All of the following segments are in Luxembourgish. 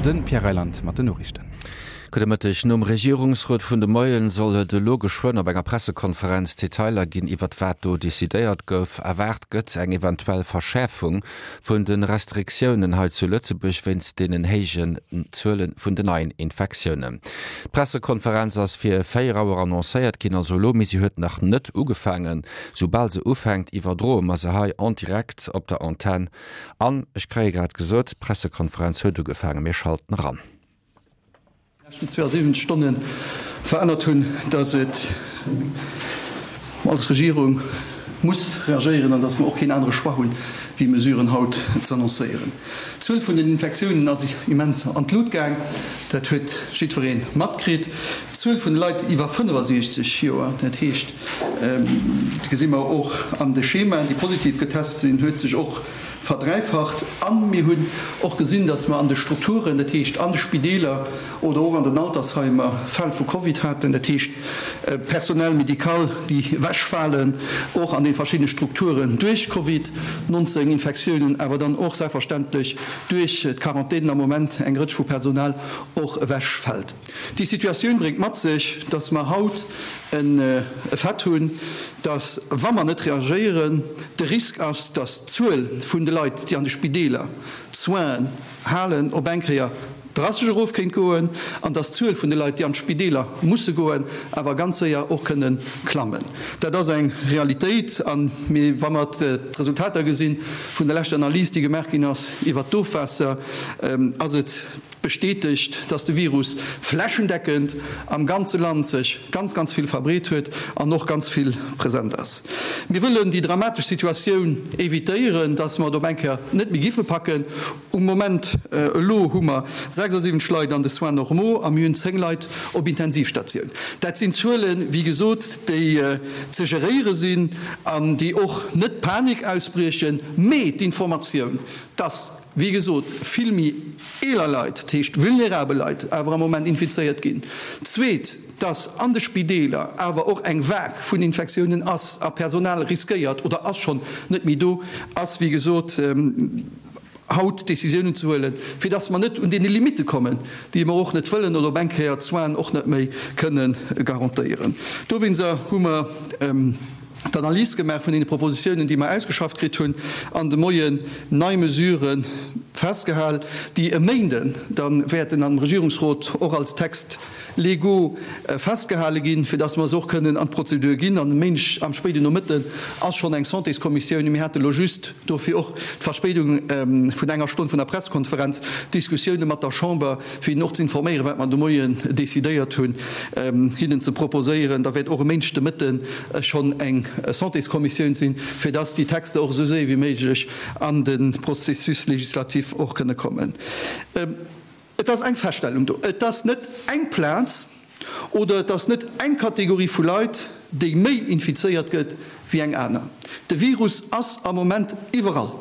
De Pierre Reyland mat den Noriichten. Gudde Mëtteg. Nom Regierungsrot vun de Moien soll et elo geschwënn op enger Pressekonferenz Detailer ginn iwwert wat do decidéiert gouf. Erwaart gëtt eng eventuell Verschäerfung vun de Restriktiounen hei zu Lëtzebuerg wéinst deenen héijen Zuele vun den neien Infektiounen. D'Pressekonferenz ass fir 4 Auer annoncéiert ginn, also elo, mee si huet nach net ugefaangen. Soubal se ufänkt, iwwerdroe mer se hei en direct op der Antenn. An ech kréie grad gesot, d'Pressekonferenz huet ugefaangen. Mir schalten eran. Leschten 72 Stonne verännert hunn, dass et als Regierung muss reagéieren an dass mer och keen anere Choix hunn, wéi Mesuren haut z'annoncéieren. D'Zuel vun den Infektiounen ass immens an d'Lut gaang, dat huet jiddweree matkritt. D'Zuel vun de Leit iwwer 65 Joer, dat heescht, dat gesi mer och an de Schemaen, déi positiv getest sinn, huet sech och verdräifacht. A mir hunn och gesinn, datt mer an de Strukturen, dat heescht an de Spideeler oder och an den Altersheimer, Fäll vu Covid haten, dat heescht Personnel médical, déi ewechfalen, och an de verschiddene Strukturen duerch Covid 19 Infektiounen, awer dann och selbstverständlech duerch d'Quarantänen am Moment eng Rëtsch vu Personal och ewechfält. Déi Situatioun bréngt mat sech, datt mer haut en Fait hunn, datt, wa mer net reagéieren, de Risk ass, datt d'Zuel vun de Leit, déi an de Spideeler d'Soinen halen, op eng Kéier drastesch erof kéint goen an datt d'Zuel vun de Leit, déi an d'Spideeler musse goen, awer ganz séier och kënne klammen. Dat ass eng Realitéit. A wa mer d'Resultater gesi vun der leschter Analys, déi gemaach ginn ass iwwert d'Ofwaasser, ass et, bestätegt, dass de Virus flächendeckend am ganze Land sech ganz, ganz vill verbreet huet an och ganz vill present ass. Mir wëllen déi dramatesch Situatioun evitéieren, dass mer et op eng Kéier net méi giffe packen. Um Moment elo hu mer 76 Leit an de Soins normaux a mir hunn 10 Leit op Intensivstatioun. Dat sinn Zuelen, wéi gesot, déi ze geréiere sinn an déi och net Panik ausbriechen, mee d'Informatioun, dass, Wéi gesot, vill méi eeler Leit, dat heescht vulnerabel Leit, awer am Moment infizéiert ginn. Zweet, dass an de Spideeler awer och eng Vague vun Infektiounen ass a Personal riskéiert oder ass schonn net méi do ass, wéi gesot, haut Décisiounen ze huelen, fir dass mer net un deene Limitte kommen, déi mer och net wëllen oder op eng Kéier d'Soinen och net méi kënne garantéieren. Dowéinster hu mer. d'Analys gemaach vun deene Propositiounen, déi mer ausgeschafft kritt hunn, an de Moien nei Mesurë festgehal, déi e Méinden da wäerten am Regierungsrot och als Textes légaux festgehale ginn, fir dass mer se och kënnen an d'Prozedur ginn. An e Méindeg am spéiden Nomëtten ass schonn eng Santéskommissioun. Mir hate elo just, dofir och d'Verspéidung vun enger Stonn vun der Presskonferenz, Diskussioune mat der Chamber, fir hinnen och ze informéieren, wat mer de Moien decidéiert hunn, hinnen ze proposéieren. Da wäert och e Méindeg de Mëtten schonn eng Santéskommissioun sinn, fir dass déi Texter och esou séier wéi méiglech an de Processus législatif och kënne kommen. Et ass eng Feststellung do, Et ass net eng Plaz oder et ass net eng Kategorie vu Leit, déi méi infizéiert gëtt wéi eng aner. De Virus ass am Moment iwwerall.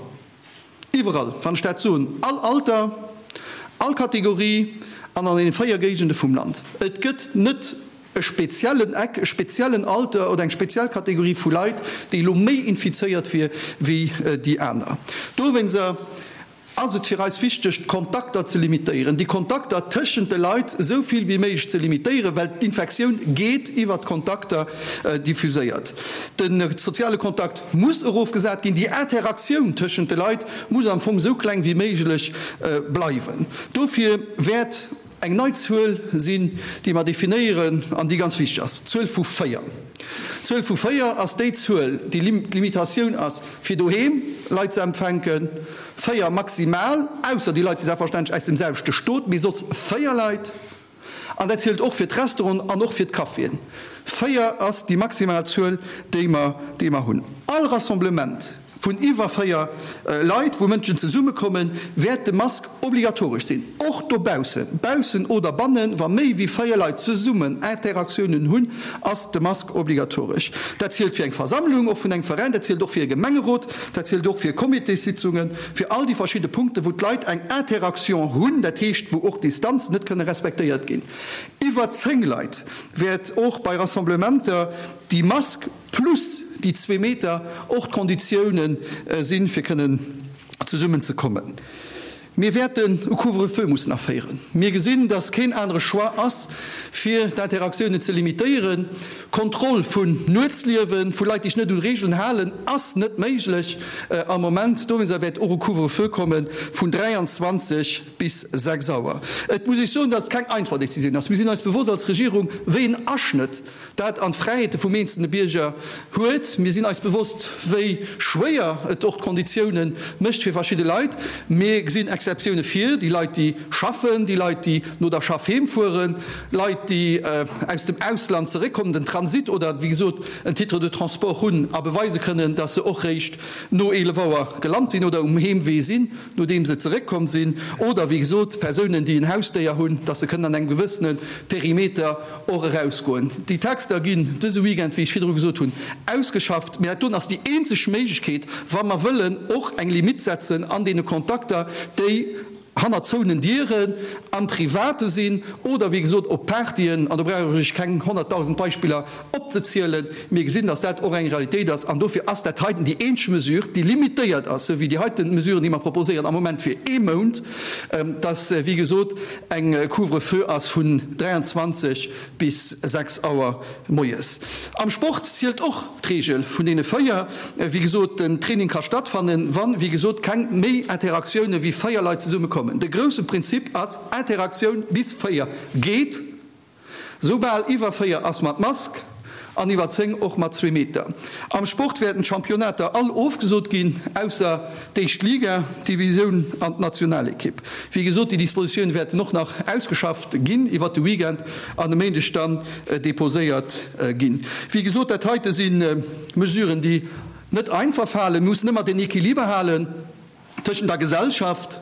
Iwwerall, wann ech dat soen, all Alter, all Kategorie an an deene 4 Géigende vum Land. Et gëtt net e speziellen Eck, e speziellen Alter oder eng speziell Kategorie vu Leit, déi elo méi infizéiert wier wéi déi aner. Dowéinster ass et fir eis wichteg, d'Kontakter ze limitéieren, déi Kontakter tëschent de Leit esou vill wéi méiglech ze limitéieren, well d'Infektioun geet iwwert d'Kontakter diffuséiert. De soziale Kontakt muss erofgesat ginn, déi Interaktioun tëschent de Leit muss am Fong esou kleng wéi méiglech bleiwen. Dofir wäert eng nei Zuel sinn, déi mer definéieren an déi ganz wichteg ass, d'Zuel vu 4. D'Zuel vu 4 ass déi Zuel, déi d'Limitatioun ass, fir doheem Leit ze empfänken, 4 maximal, ausser déi Leit si selbstverständlech aus dem selwechte Stot, mee soss 4 Leit. An dat zielt och fir d'Restauranten an och fir d'Caféen. 4 ass déi maximal Zuel, déi mer, déi mer hunn. All Rassemblement vun iwwer 4 Leit, wou Mënschen zesummekommen, wäert de Mask obligatoresch sinn, och dobaussen. Baussen oder bannen, wa méi wéi 4 Leit zesummen Interaktiounen hunn, ass de Mask obligatoresch. Dat zielt fir eng Versammlung, och vun engem Veräin, dat zielt och fir e Gemengerot, dat zielt och fir Comitéssitzungen, fir all déi verschidde Punkten, wou d'Leit eng Interaction hunn, dat heescht, wou och d'Distanzen net kënne respektéiert ginn. Iwwer 10 Leit wäert och bei Rassemblementer déi Mask plus déi zwee Meter och d'Konditioune sinn, fir kënnen zesummen ze kommen. Mir wäerten e Couvre-feu mussen aféieren. Mir gesinn, dass keen anere Choix ass, fir d'Interaktiounen ze limitéieren. Kontroll vun Nuetsliewen, vu Leit, déi sech net un Regeln halen, ass net méiglech am Moment. Dowéinster wäert och e Couvre-feu komme vun 23 bis 6 Auer. Et muss ech soen, dass et keng einfach Décisioun ass. Mir sinn eis bewosst als Regierung, wéi en Aschnëtt dat an d'Fräiheete vum eenzelne Bierger huet. Mir sinn eis bewosst, wéi schwéier et och d'Konditiounen mécht fir verschidde Leit. Mir gesinn Exceptioune fir déi Leit, déi schaffen, déi Leit, déi no der Schaff heem fueren, Leit, déi aus dem Ausland zeréckkommen, den Transit oder, wéi gesot, en Titre de transport hunn a beweise kënnen, dass se och réischt no 11 Auer gelant sinn oder um Heemwee sinn, nodeem se zeréckkomm sinn, oder, wéi gesot, Persounen, déi en Hausdéier hunn, dass se kënnen an engem gewëssene Perimeter och erausgoen. Déi Texter ginn dëse Weekend, wéi ech virdru gesot hunn, ausgeschafft. Mä dat doen ass déi eenzeg Méiglechkeet, wa mer wëllen och eng Limitt setzen an deene Kontakter, déi hannert zouenen Dieren am Private sinn oder, wéi gesot, op Partyen. An do brauch ech keng 100.000 Beispiller opzezielen. Mir gesinn, dass dat och eng Realitéit ass. An dofir ass dat heiten déi eenzeg Mesure, déi limitéiert ass, esou wéi déi heiten Mesuren, déi mer proposéieren am Moment fir ee Mount, dass, wéi gesot, eng Couvre-feu ass vun 23 bis 6 Auer moies. Am Sport zielt och d'Reegel vun deene 4. Wéi gesot, den Training ka stattfannen, wann, wéi gesot, keng méi Interaktioune wéi 4 Leit zesumme kommen. De grousse Prinzip ass, Interaktioun bis 4 geet. Soubal iwwer 4 ass mat Mask an iwwer 10 och mat zwee Meter. Am Sport wäerten d'Championnater all ofgesot ginn, ausser d'éischt Liga, d'Divisioun an d'Nationalekipp. Wéi gesot, déi Dispositioune wäerten och nach ausgeschafft ginn iwwert de Weekend an e Méindeg dann deposéiert ginn. Wéi gesot, dat heite si Mesuren, déi net einfach falen. Mir mussen ëmmer den Equiliber halen tëschent der Gesellschaft,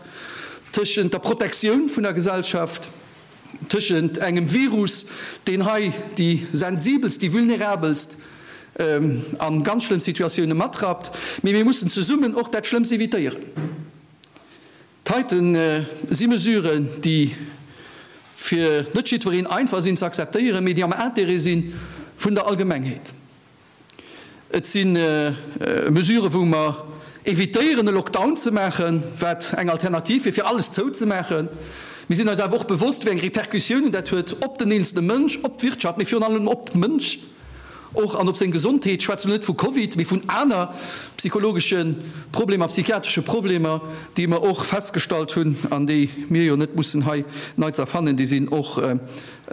tëschent der Protektioun vun der Gesellschaft, tëschent engem Virus, deen hei déi sensibelst, déi vulnerabelst a ganz schlëmm Situatioune matrappt, mee mir mussen zesummen och dat Schlëmmst evitéieren. D'heite si Mesuren, déi fir net jiddwereen einfach sinn ze akzeptéieren, mee déi am Intérêt si vun der Allgemengheet. Et si Mesuren, wou mer evitéieren, e Lockdown ze maachen, wat eng Alternativ wier, fir alles zouzemaachen. Mir sinn eis awer och bewosst, wéi eng Repercussiounen dat huet op den eenzelne Mënsch, op d'Wirtschaft, mee virun allem op de Mënsch och an op seng Gesondheet. Ech schwätzen elo net vu Covid, mee vun aner psychologesche Problemer, psychiatresche Problemer, déi mer och festgestallt hunn an déi mir jo net mussen hei nei ze erfannen, déi sinn och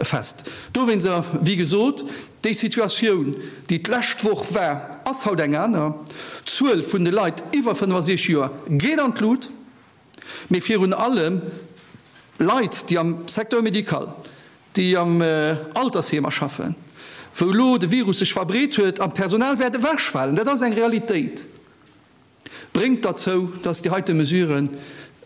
fest. Dowéinster, wéi gesot, Déi Situatioun, déi d'lescht Woch war, ass haut eng aner. D'Zuel vun de Leit iwwer 65 Joer geet an d'Lut, mee virun allem Leit, déi am Secteur médical, déi am Altersheemer schaffen, wou elo de Virus sech verbreet huet an d'Personal wäert ewechfalen, dat ass eng Realitéit. Bréngt derzou, dass déi heite Mesuren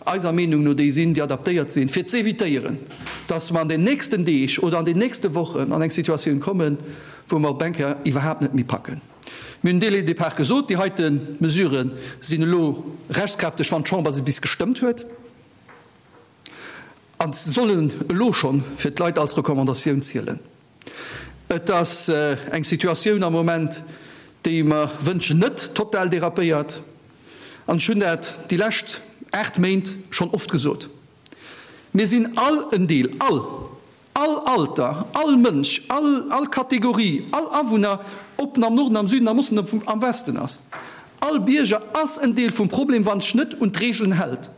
eiser Meenung no déi sinn, déi adaptéiert sinn, fir z'évitéieren, dass mer an den nächsten Deeg oder an den nächste Wochen an eng Situatioun kommen, wou mer op eng Kéier iwwerhaapt net méi packen. Mir hunn dès le départ gesot, déi heite Mesurë sinn elo rechtskräfteg, wann d'Chamber se bis gestëmmt huet, a sollen elo schonn fir d'Leit als Recommandatioun zielen. Et ass eng Situatioun am Moment, déi mer wënschen net total dérapéiert. An ech hunn dat déi lescht 8 Méint schonn oft gesot, Mir sinn all en Deel, all, all Alter, all Mënsch, all, all Kategorie, all Awunner, ob en am Norden, am Süden, am Osten, am Westen ass, all Bierger ass en Deel vum Problem, wann sech net un d'Regeln hält.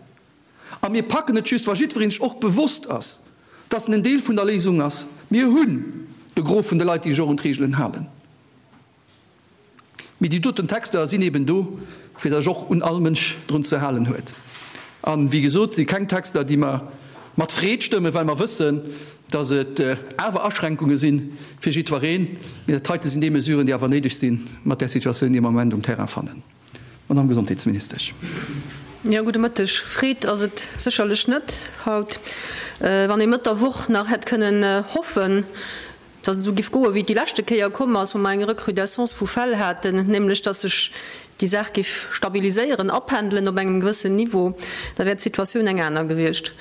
A mir packen et just, wa jiddweree sech och bewosst ass, dass en en Deel vun der Léisung ass. Mir hunn de Gros vun de Leit, déi sech och un d'Reegelen halen. Mee déi doten Texter sinn eben do, fir datt sech och un all Mënsch drun ze halen huet. A wéi gesot, si keng Texter, déi mer mat Freed stëmmen, well mer wëssen, datt et awer Aschränkunge si fir jiddwereen. Mee dat heite sinn déi Mesuren, déi awer néideg sinn, mat där Situatioun, déi mer am Moment um Terrain fannen. Madamm Gesondheetsministesch. Jo, gudde Mëtteg. Freed ass et sécherlech net haut. Wann ee Mëtt der Woch nach hätt kënnen hoffen, datt et esou giff goen, wéi et déi leschte Kéier komm ass, wou mer eng Recrudescence vu Fäll haten, nämlech datt sech déi Saach giff stabiliséieren, apendelen op engem gewëssen Niveau, da wär d'Situatioun eng aner gewiescht.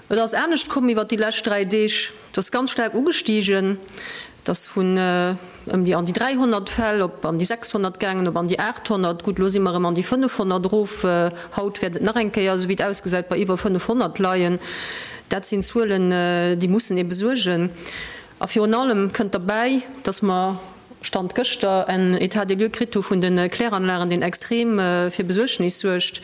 Et ass anescht komm iwwert déi lescht 3 Deeg. Et ass ganz staark ugestigen. Et ass vun ëm déi an déi 300 Fäll op an déi 600 gaangen, op an déi 800. Gutt, elo si mer erëm an déi 500 erof. Haut wäert et nach eng Kéier, esou wéi et ausgesäit, bei iwwer 500 leien. Dat sinn Zuelen, déi mussen ee besuergen. A virun allem kënnt derbäi, dass mer, Stand gëschter, en État des lieux kritt hu vun de Kläranlagen, deen extrem fir Besuergnis suergt.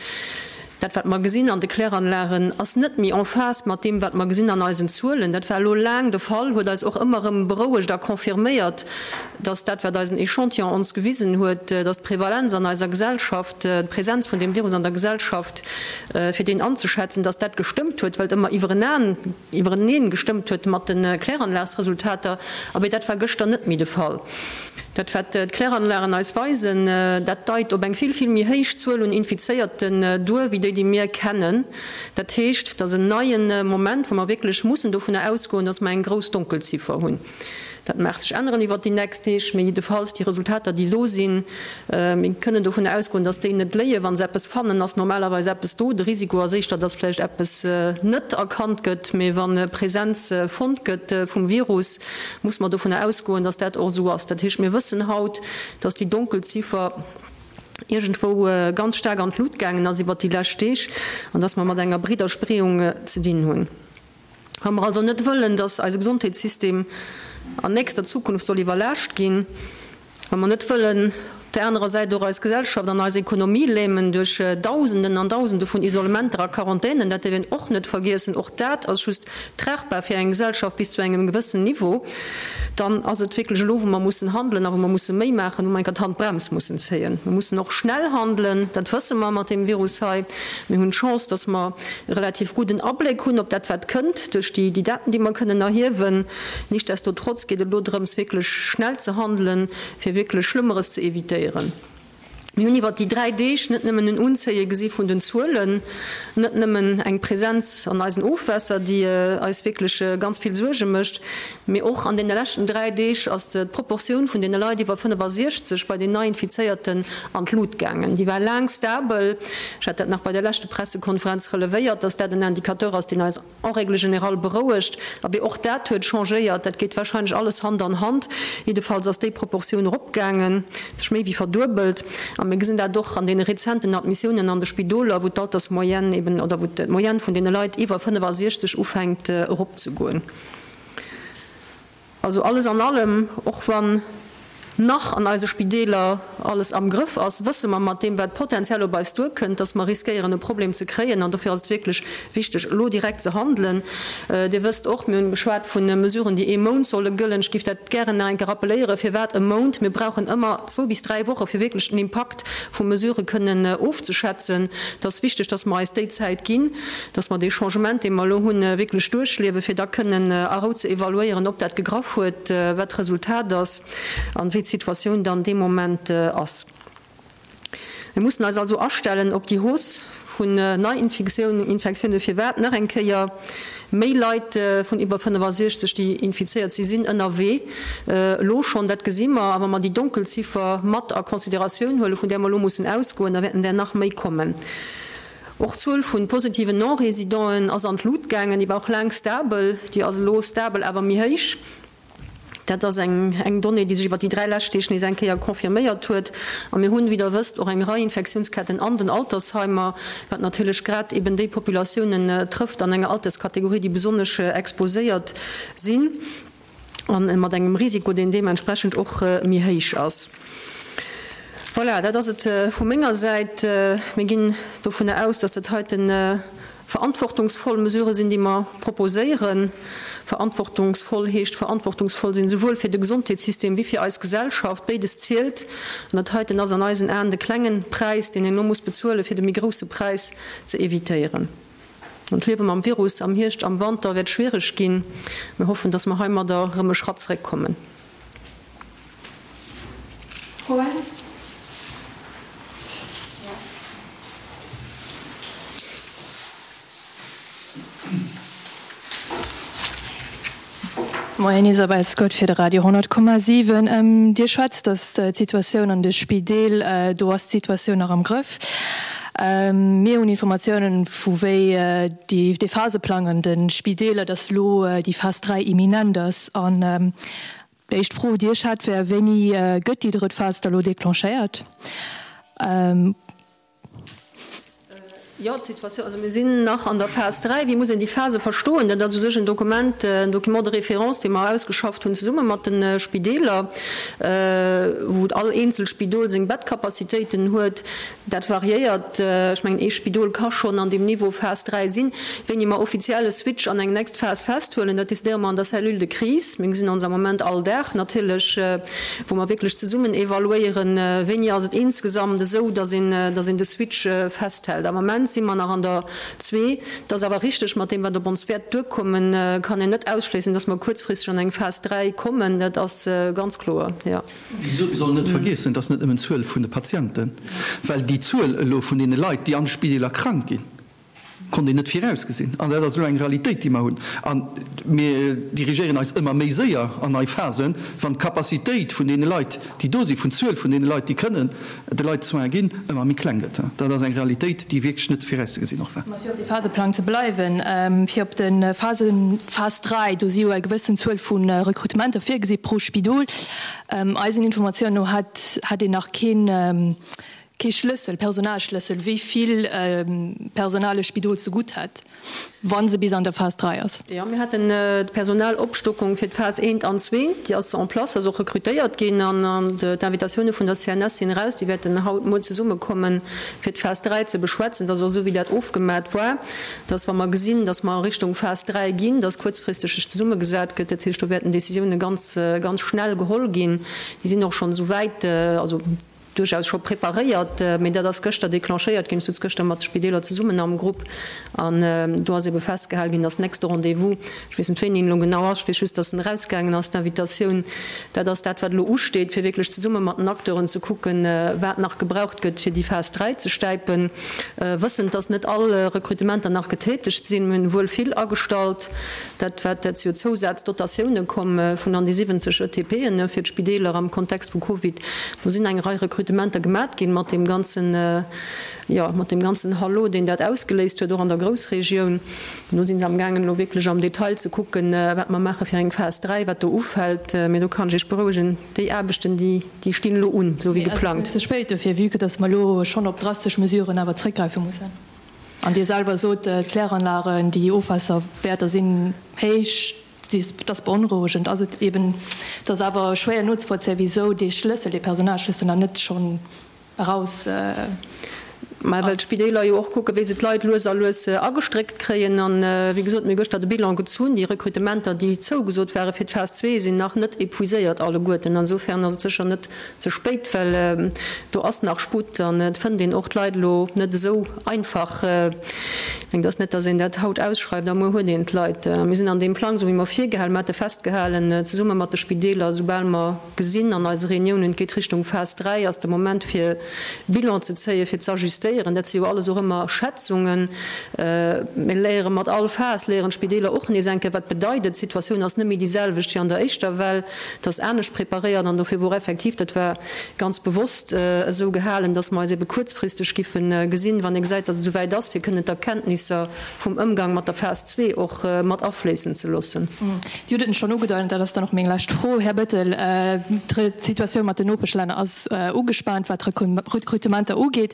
Dat, wat mer gesinn an de Kläranlagen, ass net méi en phase mat deem, wat mer gesinn an eisen Zuelen. Dat war elo laang de Fall, huet eis och ëmmer erëm berouegt a confirméiert, dass dat, wat eisen Echantillon ons gewisen huet, dass d'Prevalenz an eiser Gesellschaft, d'Präsenz vun deem Virus an der Gesellschaft, fir deen anzeschätzen, dass dat gestëmmt huet, well et ëmmer iwwerenaan, iwwereneen gestëmmt huet mat de Kläranlagsresultater, abee dat war gëschter net méi de Fall. Dat wat d'Kläranlagen eis weisen, dat deit op eng vill, vill méi héich Zuel un Infizéierten duer, wéi déi, déi mir kennen. Dat heescht, et ass en neie Moment, wou mer wierklech mussen dovunner ausgoen, dass mer eng grouss Donkelziffer hunn. Dat mag sech änneren iwwert déi nächst Deeg, mee jiddefalls déi Resultater, déi do sinn, mir kënnen dovun ausgoen, dass déi net léien. Wa se eppes fannen, ass normalerweis eppes do. De Risiko ass éischter, dass vläicht eppes net erkannt gëtt. Mee wa Presenz fonnt gëtt vum Virus, muss mer dovun ausgoen, dass dat och esou ass. Dat heescht, mir wëssen haut, dass déi Donkelziffer iergendwou ganz staark an d'Lut gaangen ass iwwert déi lescht Deeg an dass mer mat enger breeder Spreeung ze dinn hunn. Wa mer also net wëllen, dass eise Gesondheetssystem an nächster Zukunft soll iwwerlaascht ginn, wa mer net wëllen op där anerer Säit och eis Gesellschaft an eis Ekonomie lämen duerch Dausenden an Dausende vun Isolementer a Quarantänen, dat dierf een och net vergiessen, och dat ass just tragbar fir eng Gesellschaft bis zu engem gewëssen Niveau, dann ass et wierklech elo, wou mer mussen handelen a wou mer musse méi maachen, wou mer enker d'Handbrems mussen zéien. Mer mussen och schnell handelen, dat wësse mer mat deem Virus hei. Mir hunn d'Chance, dass mer e relativ gudden Abléck hunn op dat, wat kënnt, duerch déi Daten, déi mer kënnen erhiewen. Nichtsdestotrotz geet et elo drëms, wierklech schnell ze handelen, fir wierklech Schlëmmeres ze evitéieren. Mir hunn iwwert déi 3 Deeg net nëmmen en Unzéie gesi vun den Zuelen, net nëmmen eng Presenz an eisen Ofwässer, déi eis wierklech ganz vill Suerge mécht, mee och an deene leschten 3 Deeg ass d'Proportioun vun deene Leit iwwer 65 bei den Neiinfizéierten an d'Lut gaangen. Déi war laang stabel. Ech hat dat nach bei der leschte Pressekonferenz relevéiert, dass dat en Indicateur ass, deen eis en règle générale berouegt. Abee, och dat huet changéiert. Dat geet wahrscheinlech alles Hand an Hand. Jiddefalls ass déi Proportioun eropgaangen, sech méi wéi verduebelt. A mir gesinn dat och an deene rezenten Admissiounen an de Spidoler, wou d'Altersmoyenne eben, oder wou d'Moyenne vun deene Leit iwwer 65 ufänkt eropzegoen. Also alles an allem, och wann nach an eise Spideeler alles am Grëff ass, wësse mer mat deem, wat potenziell op eis duerkënnt, dass mer riskéieren e Problem ze kréien. An dofir ass et wierklech wichteg, elo direkt ze handelen. Dir wësst och, mir hunn geschwat vu Mesuren, déi ee Mount solle gëllen. Ech géif dat gären nach eng Kéier rappelléieren. Firwat e Mount? Mir brauchen ëmmer zwou bis dräi Woche fir wierklech den Impakt vu Mesurë kënnen ofzeschätzen. Et ass wichteg, dass mer eis déi Zäit ginn, dass mer dee Changement, dee mer elo hunn, wierklech duerchliewen, fir da kënnen a Rou ze evaluéieren, ob dat gegraff huet, wat d'Resultat ass an wéi d'Situatioun dann dee Moment ass. Mir mussen eis also astellen op déi Hausse vun Neiinfektiounen. Firwat? Nach eng Kéier, Méi Leit vun iwwer 65, déi infizéiert si sinn ënnerwee elo schonn. Dat gesi mer. A wa mer déi Donkelziffer mat a Consideratioun huelen, vun där mer elo mussen ausgoen, da wäerten där nach méi kommen. Och d'Zuel vu positiven Non-Résidenten ass an d'Lut gaangen. Déi war och laang stabel. Déi ass elo stabel, awer méi héich. Dat ass eng eng Donnée, déi sech iwwer déi 3 lescht Deeg nees eng Kéier confirméiert huet. A mir hunn, wéi Der wësst, och eng Rei Infektiounsketten an den Altersheimer, wat natierlech grad eben déi Populatiounen trëfft an enger Alterskategorie, déi besonnesch exposéiert sinn a mat engem Risiko, deen deementsprechend och méi héich ass. Voilà, dat ass et vu menger Säit. Mir ginn dovunner aus, dass dat heiten Verantwortungsvoll Mesurë sinn, déi mer proposéieren. Verantwortungsvoll heescht verantwortungsvoll sinn, souwuel fir de Gesondheetssystem wéi fir eis Gesellschaft. Béides zielt. An dat heiten ass an eisen Aen de klengen Präis, deen een elo muss bezuelen, fir de méi grousse Präis ze evitéieren. An d'Liewe mam Virus am Hierscht, am Wanter wäert schwiereg ginn. Mir hoffen, dass mer heimadder erëm e Schratt zréckkommen. Froen? Moien, Isabel Scott fir de Radio 10,7. Dir schwätzt, datt d'Situatioun an de Spideel, do ass d'Situatioun nach am Grëff. Mir hunn Informatiounen, vu wéi déi dee Phaseplang an de Spideeler, datt elo déi Phas 3 imminent ass. An déi éischt Fro, déi ech hätt, wär, Wéini gëtt déi drëtt Phas da elo declenchéiert? Jo, d'Situatioun, also mir sinn nach an der Phas 3. Wéi muss een déi Phase verstoen? Dat ass u sech en Dokument, en Document de référence, dee mer ausgeschafft hunn zesumme mat de Spideeler, wou all eenzel Spidol seng Bettcapacitéiten huet. Dat variéiert. Ech mengen, ee Spidol ka schonn an deem Niveau Phas 3 sinn. Wéini mer offiziell e Switch an eng nächst Phas festhuelen, dat decidéiere mer an der Cellule de crise. Mir gesinn ons am Moment all Dag natierlech, wou mer wierklech zesummen evaluéieren, wéini ass et insgesamt esou, dass een, dass een de Switch festhält. Am Moment si mer nach an der zwee. Et ass awer richteg, mat deem, wat op ons wäert duerkommen, kann een net ausschléissen, dass mer kuerzfristeg an eng Phas 3 kommen. Dat ass ganz kloer, jo. Wéi gesot, mir sollen net vergiessen, et ass net nëmmen d'Zuel vun de Patienten, well déi Zuel elo vun deene Leit, déi an de Spideeler krank ginn, konnt een net virausgesinn. An dat ass elo eng Realitéit, déi mer hunn. A mir dirigéieren eis ëmmer méi séier an nei Phasen, wann d'Capacitéit vun deene Leit, déi do sinn, vun d'Zuel vun deene Leit, déi kënnen de Leit Soins ginn, ëmmer méi kleng gëtt. Dat ass eng Realitéit, déi wierklech net virauszegesinn och war. Mä fir op de Phaseplang ze bleiwen, fir op de Phasen, Phas 3, do si jo eng gewëssen Zuel vu Rekrutementer virgesi pro Spidol. Eisen Informatiounen no hätt een nach keen, Kee Schlëssel, Personalschlëssel, wéi vill Personal e Spidol zegutt hätt, wa se bis an der Phas 3 ass. Jo, mir haten d'Personalopstockung fir d'Phas eent an zwee, déi ass en place, ass och rekrutéiert ginn an d'Invitatioune vun der CNS sinn eraus. Déi wäerten haut muer zesummekommen, fir d'Phas 3 ze beschwätzen. Dat ass och esou, wéi dat ofgemat war, dass, wa mer gesinn, dass mer a Richtung Phas 3 ginn, dass kuerzfristeg sech zesummegesat gëtt. Dat heescht, do wäerten Décisioune ganz, ganz schnell geholl ginn. Déi sinn och schonn esou wäit, also, duerchaus scho preparéiert, mee dat ass gëschter declenchéiert ginn. Ech sutz gëschter mat de Spideeler zesummen am Grupp an do ass ebe festgehal ginn, dass nächste Rendez-vous, ech weess net wéini en elo genau ass, ech weess just, dass en erausgaangen ass, d'Invitatioun, dat ass dat wat elo usteet, fir wierklech zesumme mat den Acteuren ze kucken, wat nach gebraucht gëtt, fir déi Phas 3 ze stäipen, wëssend, dass net all Rekrutementer nach getätegt sinn. Mir hunn wuel vill agestallt. Dat wat, dat si jo Zousazdotatioune komm vun an déi 70 ETPen fir d'Spideeler am Kontext vu Covid. Do sinn eng Rei Rekrutementer gemat ginn mat deem ganzen, jo, mat deem ganzen Hallo, deen dat ausgeléist huet, och an der Groussregioun. Do si se amgaangen elo wierklech am Detail ze kucken, wat mer maache fir eng Phas 3, wat do ufält. Mee do kann ech Iech berouegen, déi Aarbechten, déi, déi stinn elo un, esou wéi geplangt. Mee ass et net ze spéit dofir, vue que dass mer elo schonn op drastesch Mesuren awer zréckgräife mussen? An Dir selwer sot, d'Kläranlagen, déi Ofwaasserwäerter sinn héich, dat ass beonrouegend. Ass et eben, et ass awer schwéier nozevollzéien, wisou dee Schlëssel, dee Personalschlëssel nach net schonn eraus ass. Mä well d'Spideeler jo och kucken, wéi se d'Leit lues a lues agestréckt kréien. An, wéi gesot, mir hu gëschter de Bilan gezunn. Déi Rekrutementer, déi zougesot ware fir d'Phas zwee, sinn nach net épuiséiert alleguerten. Insofern ass et sécher net ze spéit, well do ass nach Sputt an et fënnt een och d'Leit elo net esou einfach. Ech mengen, et ass net, datt een dat haut ausschreift a muer huet een d'Leit. Mir sinn an deem Plang, esou wéi mer virgehalen, mer hate festgehalen, zesumme mat de Spideeler, esoubal mer gesinn an eise Reuniounen, et geet Richtung Phas 3, ass de Moment fir Bilan ze zéien, fir z'ajustéieren. Dat si jo alles och ëmmer Schätzungen. Mir léiere mat all Phas, léieren d'Spideeler och nees eng Kéier, wat bedeit et. D'Situatioun ass net méi déi selwecht wéi an der éischter Well. Et ass anescht preparéiert an dofir wor effektiv, dat war ganz bewosst esou gehalen, dass mer eis ebe kuerzfristeg giffe gesinn, wann ee gesäit, dass et esou wäit ass, fir kënnen d'Erkenntnisser vum Ëmgang mat der Phas zwee och mat afléissen ze loossen. Dir hutt et schonn ugedeit, an dat ass dann och meng lescht Fro, Här Bettel, D'Situatioun mat den Nopeschlänner ass ugespaant, wat d'Rekrutementer ugeet.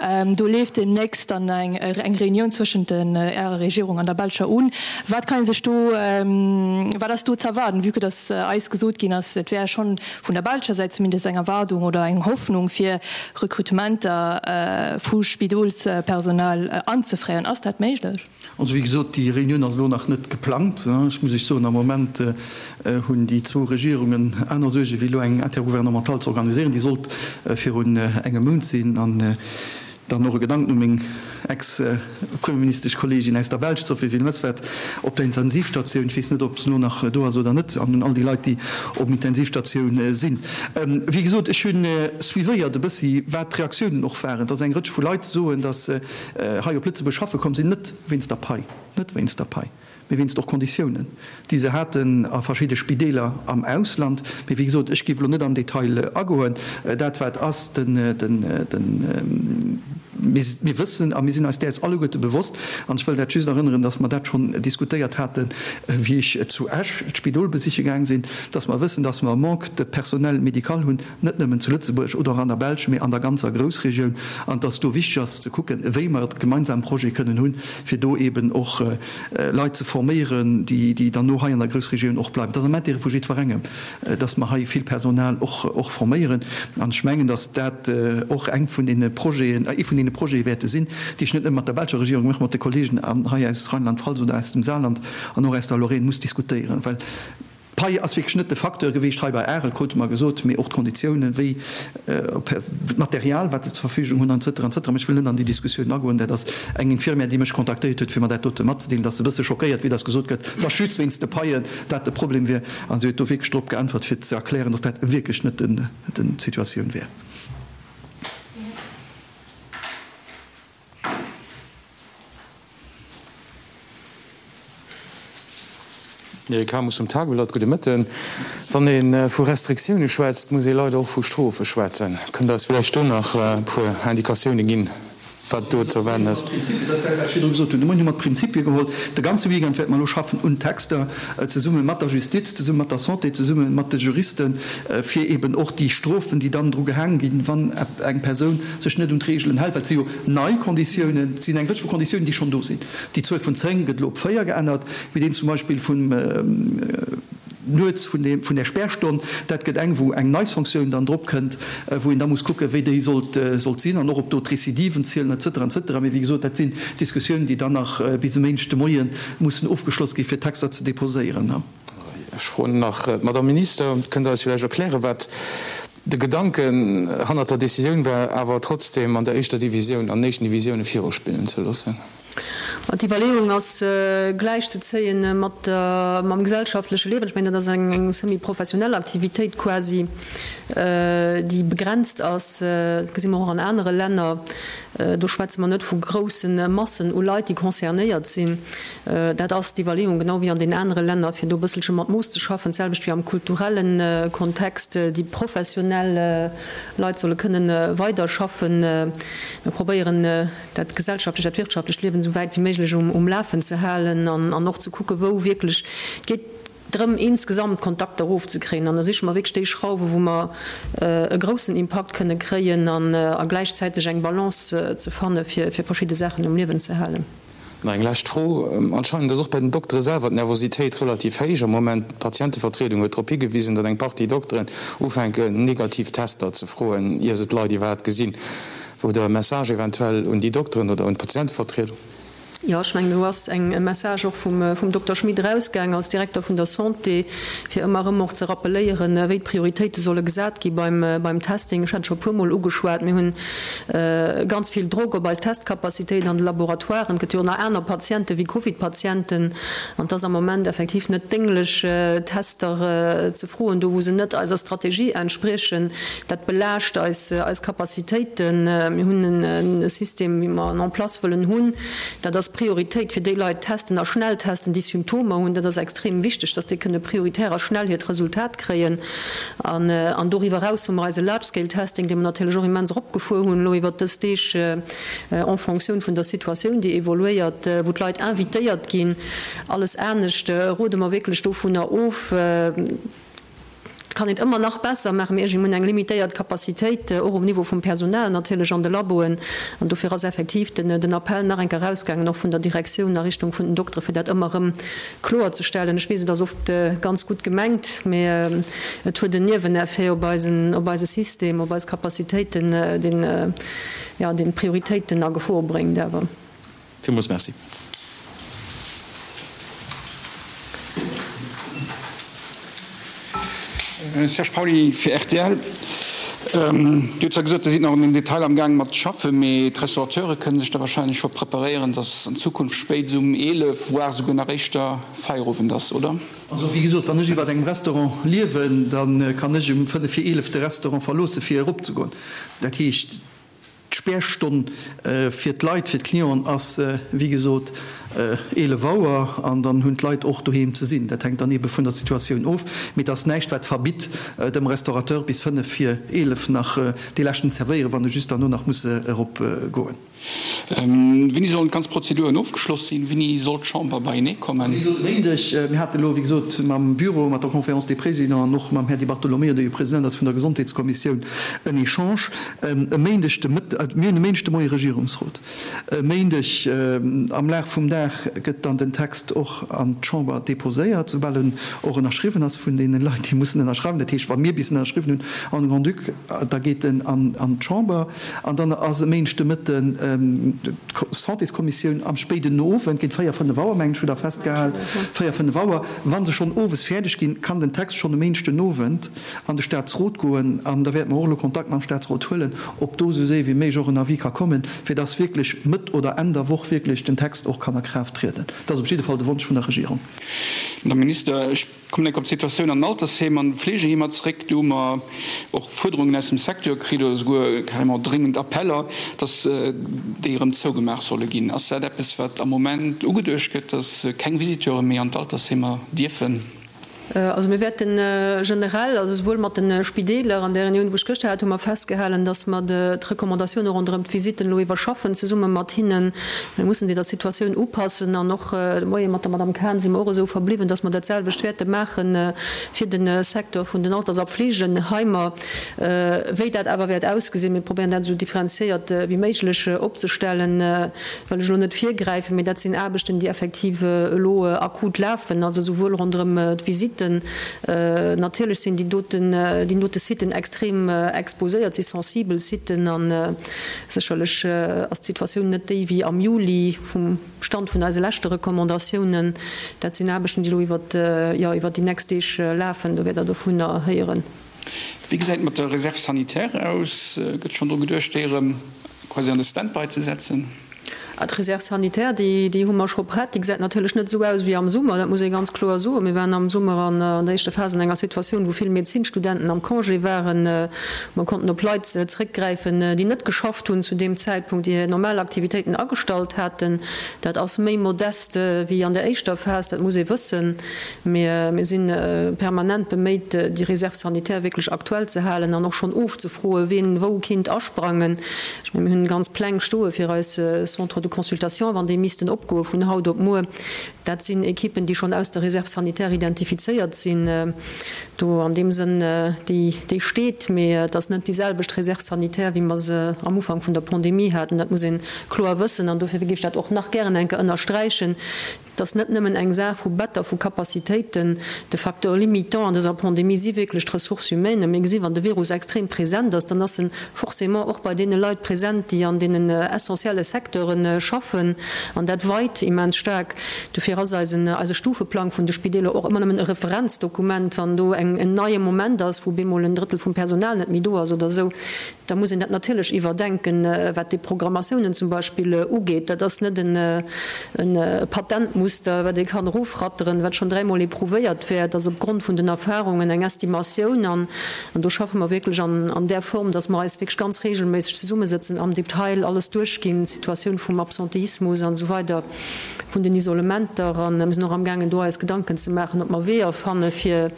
Do leeft deemnächst dann eng Reunioun zwëschent Ärer Regierung an der belscher un. Wat kann ee sech do, wat ass do z'erwaarden, vue que dass eis gesot ginn ass, et wär schonn vun der belscher Säit zumindest eng Erwaardung oder eng Hoffnung fir Rekrutementer vu Spidolspersonal anzefréieren. Ass dat méiglech? Also wéi gesot, déi Reunioun ass elo nach net geplangt. Ech muss Iech soen, am Moment hunn déi zwou Regierungen aner Suerge wéi elo eng Intergouvernementale ze organiséieren. Déi sollt virun engem Mount sinn. An dann och e Gedanken u meng Ex-Premierministeschkolleegin aus der Belsch, d'Sophie Wilmès, wat op der Intensivstatioun, ech weess net, ob se elo nach do ass oder net, an un all déi Leit, déi op Intensivstatioun sinn. Wéi gesot, ech hu suivéiert e bëssi, wat d'Reaktiounen och waren, dass eng Rëtsch vu Leit soen, dass hei op Lëtzebuerg schaffe komm sinn, net wéinst der Pai, net wéinst der Pai, mee wéinst och Konditiounen, déi se haten a verschidde Spideeler am Ausland. Mee wéi gesot, ech géif elo net am Detail agoen. Dat wat ass, den, den, den. Mir wëssen a mir sinn eis däers alleguerte bewosst, an ech wëll dat just erënneren, dass mer dat schonn diskutéiert haten, wéi ech zu Esch d'Spidol besiche gaang sinn, dass mer wëssen, dass mer e Manque de personnel médical hunn, net nëmmen zu Lëtzebuerg oder och an der Belsch, mee an der ganzer Groussregioun, an dass do wichteg ass ze kucken, wéi mer e gemeinsame Projet kënnen hunn, fir do eeben och Leit ze forméieren, déi dann no hei an der Groussregioun och bleiwen. Et ass am Intérêt vu jiddwerengem, dass mer hei vill Personal och forméieren. An ech mengen, dass dat och eng vun deene Projeten, ee vun deene Projete wäerte sinn, déi ech net nëmme mat der belscher Regierung, mee och mat de Kollegen hei aus Rheinland-Pfalz oder aus dem Saarland an och aus der Lorraine muss diskutéieren. Well d'Pai ass wierklech net de Facteur gewiescht hei bei Arel, krute mer gesot, mee och d'Konditiounen, wéi d'Material, wat se zur Verfügung hunn, an cetera, an cetera. Mee ech wëll net an déi Diskussioun agoen. Dat ass eng Infirmière, déi mech kontaktéiert huet, fir mer dat dote matzedeelen, dass se e bësse schockéiert wier, dass gesot gëtt, dass just wéinst de Paien dat de Problem wier. An si huet do wierklech drop geäntwert, fir ze erklären, dass dat wierklech net d'Situatioun wär. Eric Hamus vum Tageblatt, Gudde Mëtten. Wann ee vu Restriktioune schwätzt, muss ee leider och vu Strofe schwätzen. Kënnt Der eis vläicht do nach e puer Indikatioune ginn? Wat do ze erwaarden ass. Dat ass dat, wat ech virdru gesot hunn. De Moien hu mer d'Prinzipie geholl. De ganze Weekend wäerte mer elo schaffen un Texter, zesumme mat der Justiz, zesumme mat der Santé, zesumme mat de Juristen, fir eeben och déi Strofen, déi dann dru gehaang ginn, wann eng Persoun sech net un d'Reegelen hält, well et si jo nei Konditiounen, et sinn eng Rëtsch vu Konditiounen, déi schonn do sinn. Déi Zuel vun 10 gëtt elo op 4 geännert, mee deen zum Beispill vum. Nuets vun deem, vun där Spärstonn, dat gëtt eng, wou eng nei Sanktioun dann drop kënnt, wou een da muss kucken, wéi déi sollt, sollt sinn an och ob do d'Recidiven zielen et cetera, et cetera. Mee wéi gesot, dat sinn Diskussiounen, déi dann nach bis e Méindeg de Moie mussen ofgeschloss ginn, fir d'Texter ze déposéieren. Ech froen nach d'Madame Minister, Kënnt Der eis villäicht erklären, wat de Gedanken hannert der Décisioun war, awer trotzdem an der éischter Divisioun, an den éischten Divisioune viruspillen ze loossen? D'Iwwerleeung ass gläichzezéien mat mam gesellschaftleche Liewen. Ech mengen, dat ass eng semi-professionell Aktivitéit quasi, déi begrenzt ass. Dat gesi mer och an anere Länner. Do schwätze mer net vu grousse Massen u Leit, déi concernéiert sinn. Dat ass d'Iwwerleeung, genau wéi an den anere Länner, fir do e bësselche mat Mooss ze schaffen. D'selwecht wéi am kulturelle Kontext, déi professionell Leit solle kënnen weiderschaffen. Mir probéieren, dat gesellschaftlecht, dat wirtschaftlecht Liewen esou wäit wéi méiglech um Lafen ze halen an och ze kucken, wou wierklech, et geet drëm insgesamt d'Kontakter erofzekréien an da siche mer wierklech déi Schrauwen, wou mer e groussen Impakt kënne kréien a gläichzäiteg eng Balance ze fanne fir verschidde Saachen um Liewen ze halen. Nach eng lescht Fro, Anscheinend ass och bei den Doktere selwer d'Nervositéit relativ héich am Moment. D'Patientevertriedung huet drop higewisen, datt eng Partie Dokteren ufänken, negativ Tester ze froen, ier se d'Leit iwwerhaapt gesinn. Wou der e Message eventuell un déi Dokteren oder un d'Patientevertriedung? Jo, ech mengen, do ass eng e Message och vum, vum Dokter Schmit erausgaang als Direkter vun der Santé, fir ëmmer erëm och ze rappeléieren, wéi d'Prioritéite solle gesat gi beim, beim Testing. Ech hat et scho e puermol ugeschwat, mir hunn ganz vill Drock op eis Testcapacitéit an de Laboratoiren. Et gëtt jo och nach aner Patiente wéi Covid-Patienten an et ass am Moment effektiv net dénglech, Tester ze froen, do wou se net eiser Strategie entspriechen. Dat belaascht eis eis Capacitéiten. Mir hunn e System, wéi mer en en place wëllen hunn. Dat ass Prioritéit fir déi Leit testen a schnell testen, déi Symptomer hunn. Dat ass extrem wichteg, dass déi kënne prioritär a schnell hiert Resultat kréien. An an doriwwer eraus hu mer eise Large-Scale-Testing, dee mer natierlech och immens eropgefuer hunn elo iwwert dës Deeg en fonction vun der Situatioun, déi evoluéiert, wou d'Leit invitéiert ginn. Alles anescht rode mer wierklech dovunner of. Et kann een et ëmmer nach besser maachen, mee iergendwéi mir hunn eng limitéiert Capacitéit, och um Niveau vum Personal natierlech an de Laboen. An dofir ass effektiv den Appell nach eng Kéier erausgaangen, och vun der Direktioun a Richtung vun den Doktere fir dat ëmmer erëm kloerzestellen. Ech weess, et ass oft ganz gutt gemengt, mee et huet en Nieweneffet op eisen, op eise System, op eis Capacitéiten, deen, jo, deen d'Prioritéiten a Gefor bréngt awer. Villmools Merci. Serge Pauly fir rtl. Dir hutt zwar gesot, Dir sidd nach un den Detailer am gaang mat schaffen, mee d'Restaurateure kënne sech da wahrscheinlech scho preparéieren, datt an Zukunft spéit um 11, voire souguer nach éischter Feierowend ass, oder? Also wéi gesot, wann ech iwwer engem Restaurant liewen, da kann ech um fënnef vir 11 de Restaurant verloosse fir eropzegoen. Dat heescht, D'Spärstonn fir d'Leit, fir d'Clienten ass wéi gesot. 11 Auer an dann hunn d'Leit och doheem ze sinn. Dat hänkt dann eebe vun der Situatioun of. Mee et ass näischt, wat verbitt, dem Restaurateur bis 5 vir 11 nach dee leschten zerwéieren, wann e just derno nach muss erop goen. Wéini sollen d'ganz Prozeduren ofgeschloss sinn? Wéini soll d'Chamber beienee kommen? Also wéi gesot, e Méindeg. Mir haten elo, wéi gesot, mam Büro, mat der Conférence des Présidents an och mam Här Di Bartolomeo, dee jo President ass vun der Gesondheetskommissioun, en Echange. E Méindeg de Mëtt, mir hunn e Méindeg de Moie Regierungsrot. E Méindeg am Laf vum Dag gëtt dann den Text och an d'Chamber deposéiert, soubal en och ënnerschriwwen ass vun deene Leit, déi mussen ënnerschreiwen. Dat heescht, wa mir bis en ënnerschriwwen hunn an de Grand-Duc, da geet en an d'Chamber. An dann ass e Méindeg de Mëtten d'Santéskommissioun am spéiden Owend, géint 4, 5 Auer, mengen ech, hutt Der festgehal, 4, 5 Auer. Wa se schonn owes fäerdeg ginn, kann den Text schonn e Méindeg den Owend an de Statsrot goen. An da wäerte mer och elo Kontakt mam Statsrot huelen, ob do esou séier wéi méiglech och en Avis ka kommen, fir dass wierklech Mëtt oder Enn der Woch wierklech den Text och kann a Kraaft trieden. Dat ass op jidde Fall de Wonsch vun der Regierung. Madame Minister, ech kommen enk op d'Situatioun an den Altersheem an Fleegeheemer zeréck. Do hu mer och Fuerderungen aus dem Secteur kritt oder souguer carrément dréngend Appeller, dass déi erëm zougemaach solle ginn. Ass dat eppes, wat am Moment ugeduecht gëtt, dass keng Visiteure méi an d'Altersheemer dierfen? Also mir wäerte generell, also souwuel mat de Spideeler, an där Reunioun, wou ech gëschter hat, hu mer festgehalen, datt mer d'Recommandatioune ronderëm d'Visitten elo iwwerschaffen, zesumme mat hinnen. Mir mussen déi der Situatioun upassen. An och de Moie mat der Madame Cahen si mer och esou verbliwwen, datt mer dat selwecht wäerte maache fir de Secteur vun den Alters a Pflegeheimer. Wéi dat awer wäert ausgesinn, mir probéieren dat esou differenziéiert wéi méiglech opzestellen, wëll ech elo net virgräifen, mee dat sinn Aarbechten, déi effektiv elo akut lafen, also souwuel ronderëm d'Visitten, natierlech sinn déi doten, déi dote Siten extrem exposéiert, si sensibel Siten a sécherlech ass d'Situatioun net déi wéi am Juli vum Stand vun eise leschte Recommandatiounen. Dat sinn Aarbechten, déi elo iwwert, jo, iwwert déi nächst Deeg lafen, do wäert Der dovunner héieren. Wéi gesäit et mat der Réserve sanitaire aus? Gëtt schonn dru geduecht, déi erëm quasi an de Stand-by ze setzen? D'Réserve sanitaire, déi hu mer scho prett. Déi gesäit natierlech net esou aus wéi am Summer, dat muss ee ganz kloer soen. Mir waren am Summer an der éischter Phas an enger Situatioun, wou vill Medezinstudenten am Congé waren. Mer konnten op Leit zeréckgräifen, déi net geschafft hunn zu deem Zäitpunkt, déi hir normal Aktivitéiten agestallt haten. Dat ass méi modest wéi an der éischter Phas, dat muss ee wëssen. Mee mir si permanent beméit, déi Réserve sanitaire wierklech aktuell ze halen an och schonn ofzefroen, wien wou kinnt asprangen. Ech mengen, mir hunn ganz Pläng stoe fir eis Centres de consultation, wann déi missten opgoe vun haut op muer. Dat sinn Ekippen, déi schonn aus der Réserve sanitaire identifizéiert sinn. Do an deem Sënn, déi steet. Mee et ass net déi selwecht Réserve sanitaire, wéi mer se am Ufank vun der Pandemie haten. Dat muss ee kloer wëssen an dofir géif ech dat och nach gären eng Kéier ënnersträichen. Et ass net nëmmen eng Saach vu Better, vu Capacitéiten. De Facteur limitant an dëser Pandemie si wierklech d'Ressources humaines. Mir gesinn, wann de Virus extrem present ass, dann ass en forcément och bei deene Leit present, déi an deenen essentielle Secteure schaffen. An dat weit immens staark. Dofir ass eisen, eise Stufeplang vun de Spideeler och ëmmer nëmmen e Referenzdokument. Wann do eng, en neie Moment ass, wou bemol en Drëttel vum Personal net méi do ass oder esou, Da muss een dat natierlech iwwerdenken, wat déi Programmatiounen zum Beispill ugeet. Dat ass net e Patentmuster, wat ee kann erofratteren, wat schonn dräimol éprouvéiert wär. Et ass opgrond vun den Erfahrungen eng Estimatioun. An do schaffe mer wierklech an där Form, dass mer eis wierklech ganz regelméisseg zesummesëtzen, am Detail alles duerchginn, d'Situatioun vum Absenteismus an esou weider. vun den Isolementer an mir sinn och amgaangen do eis Gedanken ze maachen, ob mer Weeër fanne fir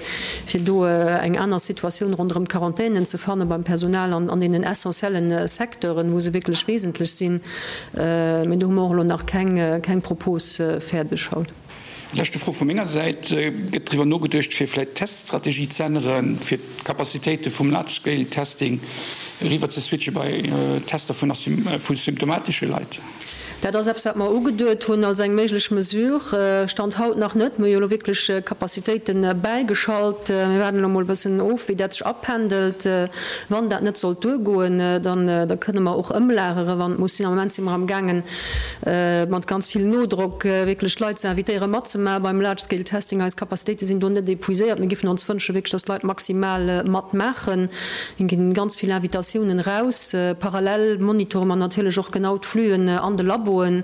fir do eng aner Situatioun ronderëm d'Quarantänen ze fanne beim Personal an an deenen essentiellen Secteuren, wou se wierklech wesentlech sinn. Mee do hu mer och elo nach keng keng Propos fäerdeg haut. Leschte Fro vu menger Säit, Gëtt driwwer nogeduecht, fir vläicht d'Teststrategie ze änneren, fir d'Capacitéite vum Large-Scale-Testing eriwwer ze switche bei Tester vu symptomatesche Leit? Dat ass eppes, wat mer ugeduet hunn als eng méiglech Mesure. Stand haut nach net. Mir hu jo elo wierklech Capacitéite bäigeschalt. Mir waarden elo emol e bëssen of, wéi dat sech apendelt. Wann dat net sollt duergoen, dann da kënne mer och ëmlagere wann et muss sinn. Am Moment si mer amgaangen, mat ganz vill Nodrock wierklech d'Leit ze invitéieren, matzemaache beim Large Scale Testing. Eis Capacitéite sinn do net épuiséiert. Mir géifen ons wënschen, wierklech, dass d'Leit maximal matmaachen. Et ginn ganz vill Invitatiounen eraus. Parallel monitore mer natierlech och genau d'Fluen an de Labo. Laboen.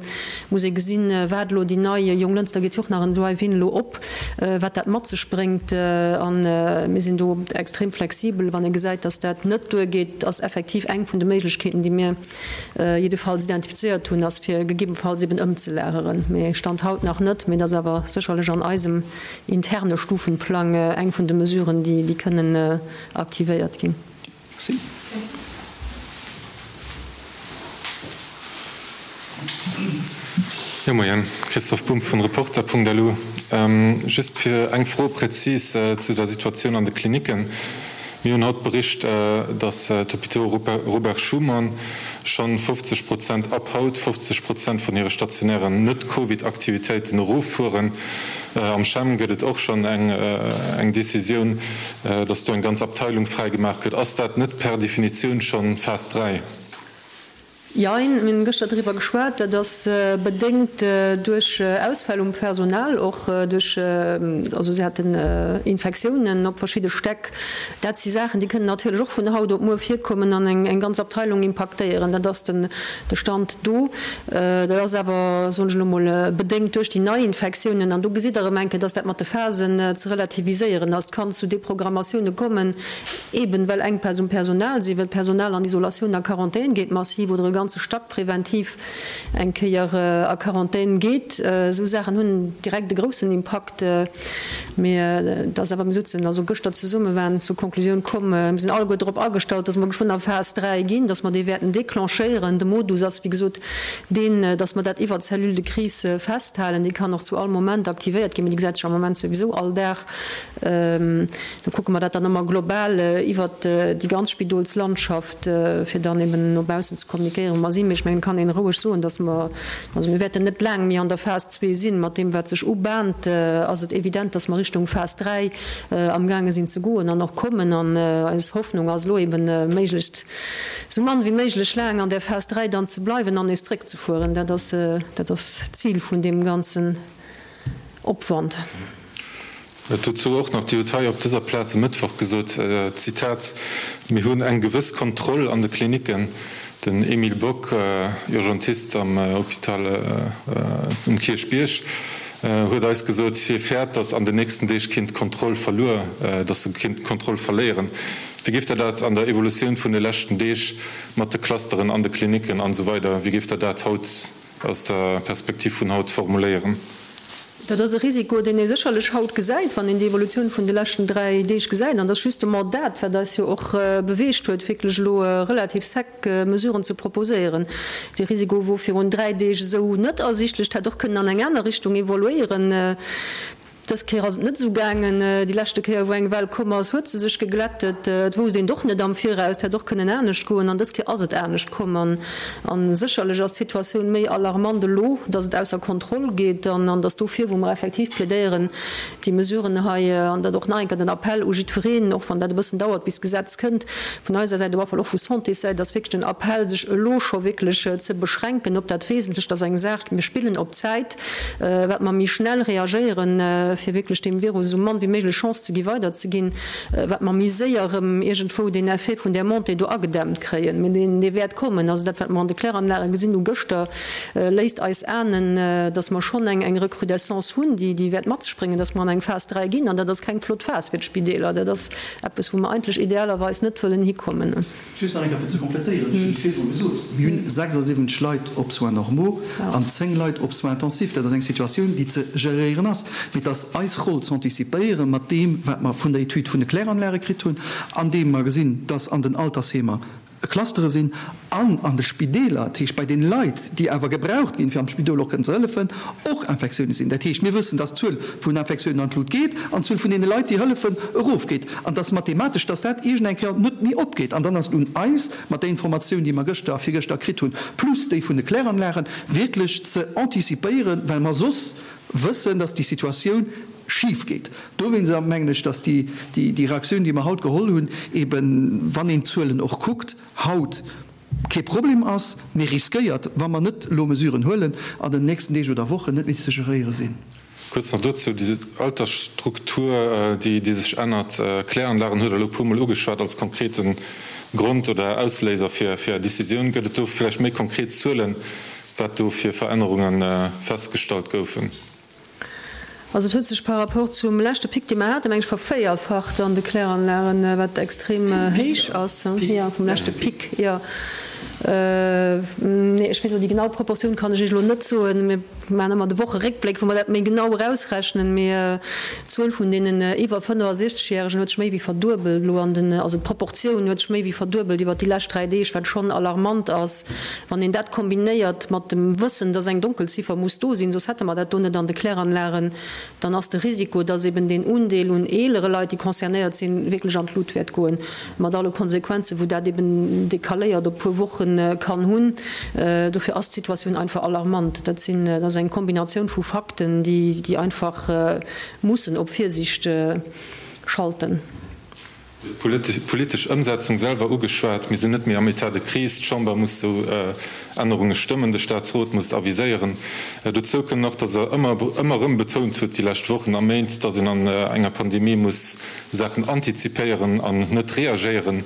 Muss ee gesinn, wat elo déi nei, Jonglënster geet jo och nach en Drive-in elo op, wat dat mat sech bréngt. A mir sinn do extrem flexibel. Wann ee gesäit, datt dat net duergeet, ass effektiv eng vun de Méiglechkeeten, déi mir jiddefalls identifizéiert hunn, ass fir gegebenfalls eben ëmzelageren. Mee Stand haut nach net. Mee et ass awer sécherlech an eisem interne Stufenplang eng vun de Mesuren, déi kënnen aktivéiert ginn. Merci. Jo, Moien, Christoph Bumb vun Reporter.lu. Just fir eng Fro präzis zu der Situatioun an de Klinicken. Mir hunn haut bericht, datt d'Hôpitaux Robert Schuman schonn 50 Prozent, ab haut 50 Prozent vun hire stationären Net-Covid-Aktivitéiten eroffueren. Am CHEM gëtt et och schonn eng Decisioun, datt do eng ganz Abteilung fräi gemaach gëtt. Ass dat net per Definitioun schonn Phas 3? Jein, mir hunn gëschter driwwer geschwat. Dat ass bedéngt duerch Ausfäll um Personal, och duerch, also si haten Infektiounen op verschidde Stäck. Dat si Saachen, déi kënnen natierlech och vun haut op muer virkommen an eng ganz Abteilung impaktéieren. Dat ass de Stand do. Dat ass awer, soen ech elo mol, bedéngt duerch déi nei Infektiounen. An do gesitt Der erëm eng Kéier, dass dat mat de Phasen ze relativiséieren ass. Et kann zu Deprogrammatioune kommen, Eben well Enkpäss um Personal sinn, well d'Personal an Isolatioun a Quarantän geet massiv oder e ganze Stack präventiv eng Kéier a Quarantän geet. Esou Saachen hunn direkt e groussen Impakt. Mee et ass awer, mir sutzen also gëschter zesumme, waren zur Konklusioun komm, mir sinn alleguer drop agestallt, dass mer geschwënn a Phas 3 ginn, dass mer déi wäerten declenchéieren. De Modus ass wéi gesot deen, dass mer dat iwwert d'Cellule de crise festhalen. Déi kann och zu all Moment aktivéiert ginn, mee déi gesäit sech am Moment souwisou all Dag. Do kucke mer dat dann ëmmer global iwwert déi ganz Spidolslandschaft, fir dann eben no baussen ze kommunikéieren, wou mer sinn. Mee ech mengen, et kann een roueg soen, dass mer, also mir wäerten net laang méi an der Phas zwee sinn. Mat deem, wat sech ubahnt, ass et evident, dass mer Richtung Phas 3 amgaange sinn ze goen an och kommen. An eis Hoffnung ass elo eben, méiglechst esou mann wéi méiglech laang an där Phas 3 dann ze bleiwen an nees zréckzefueren. Dat ass, dat ass d'Zil vun deem ganzen Opwand. Dozou och nach, Dir hutt hei op dëser Plaz e Mëttwoch gesot, Zitat, Mir hunn eng gewëss Kontroll an de Klinicken. Den Emile Bock, Urgentist am Hôpital um Kierchbierg, huet eis gesot, hie fäert, datt an den nächsten Deeg kinnt d'Kontroll verluer, datt se kinnt d'Kontroll verléieren. Wéi géift Der dat an der Evolutioun vun de leschten Deeg mat de Clusteren an de Klinicken an esou weider, wéi géift Der dat haut aus der Perspektiv vun haut formuléieren? Dat ass e Risiko, deen ee sécherlech haut gesäit, wann een déi Evolutioun vun de leschten 3 Deeg gesäit. An dat ass justement dat, wat eis jo och beweegt huet, wierklech elo relativ sec Mesuren ze proposéieren. Dee Risiko wor virun 3 Deeg esou net ersichtlech. Et hätt och kënnen an eng aner Richtung evoluéieren. Dës Kéier ass et net esou gaangen. Déi leschte Kéier, wou eng Well komm ass, huet se sech geglättet. Et wousst een et och net am Viraus. Et hätt och kënnen anescht goen. An dës Kéier ass et anescht komm. An sécherlech ass d'Situatioun méi alarmant elo, datt et ausser Kontroll geet an datt dofir, wou mer effektiv plädéieren, déi Mesuren hei, an dat och nach eng Kéier den Appell u jiddwereen, och wann dat e bëssen dauert, bis d'Gesetz kënnt, vun eiser Säit, op alle Fall och vu Santéssäit, ass wierklech den Appell, sech elo scho wierklech ze beschränken op dat Wesentlecht. Dat ass eng Saach, mir spillen op Zäit. Wat mer méi schnell reagéieren, fir wierklech deem Virus esou mann wéi méiglech Chance ze gi weiderzeginn, wat mer méi séier erëm iergendwou deen Effet vun där Montée do agedämmt kréien. Mee deen, dee wäert kommen. Also dat, wat mer an de Kläranlage gesinn hu gëschter, léisst eis ahnen, datt mer schonn eng eng Recrudescence hunn, déi, déi wäert mat sech bréngen, datt mer an eng Phas 3 ginn. An dat ass keng flott Phas fir d'Spideeler. Dat ass eppes, wou mer eigentlech idealerweis net wëllen hikommen. Just nach eng Kéier fir ze complétéieren, ech hunn et virdru gesot, Mir hunn 76 Leit op Soins normaux an 10 Leit op Soins intensifs. Dat ass eng Situatioun, déi ze geréieren ass. Mee et ass eis Roll z'anticipéieren mat deem, wat mer vun der Etüd vun de Kläranlage kritt hunn, andeem mer gesinn, dass an den Altersheemer Clustere sinn an an de Spideeler, dat heescht bei den Leit, déi awer gebraucht ginn, fir am Spidol och kënnen ze hëllefen, och Infektiounen sinn. Dat heescht, mir wëssen, dass d'Zuel vun Infektiounen an d'Lut geet an d'Zuel vun deene Leit, déi hëllefen, erofgeet. An dass mathematesch, dass dat iergend eng Kéier net méi opgeet. An dann ass et un eis, mat där Informatioun, déi mer gëschter a virgëschter kritt hunn, plus déi vun de Kläranlagen, wierklech ze antizipéieren, well mer soss wëssen, dass déi Situatioun schif geet. Dowéinster mengen ech, dass déi Reaktioun, déi mer haut geholl hunn, eben, wann een d'Zuelen och kuckt haut, kee Problem ass, mee riskéiert, wa mer net elo Mesuren huelen, an den nächsten Deeg oder Wochen net méi ze geréiere sinn. Kuerz nach dozou, déi Altersstruktur, déi sech ännert, Kläranlagen huet Der elo e puermol ugeschwat als konkrete Grond oder Ausléiser fir Är Decisioun. Gëtt et do vläicht méi konkret Zuelen? Wat do fir Verännerunge festgestallt goufen? Also et huet sech par rapport zum leschte Pic, dee mer haten, meng ech, vervéierfacht an de Kläranlagen, wat extrem héich ass. Jo, vum leschte Pic, jo. Nee, ech weess elo déi genau Proportioun kann ech Iech elo net soen. Mir maachen ëmmer de Wocheréckbléck, wou mer dat méi genau erausrechnen. Mee d'Zuel vun deenen iwwer 65 Järegen huet sech méi wéi verduebelt elo an den, also d'Proportioun huet sech méi wéi verduebelt iwwert déi lescht 3 Deeg, wat schonn alarmant ass. Wann een dat kombinéiert mat dem Wëssen, dass eng Donkelziffer muss do sinn, soss hätte mer dat do net an de Kläranlagen, dann ass de Risiko, dass eben deen Undeel un eelere Leit, déi concernéiert sinn, wierklech an d'Lut wäert goen, mat alle Konsequenzen, wou dat eben decaléiert op puer Woche kann hunn. Dofir ass d'Situatioun einfach alarmant. Dat sinn, dat ass eng Kombinatioun vu Fakten, déi einfach mussen op Virsicht schalten. D'politesch Ëmsetzung selwer ugeschwat. Mir sinn net méi am État de crise. D'Chamber muss esou Ännerunge stëmmen, de Staatsrot muss et aviséieren. Dozou kënn nach, datt Der ëmmer, ëmmer erëm betount hutt déi lescht Wochen a Méint, datt een an enger Pandemie muss Saachen antizipéieren an net reagéieren.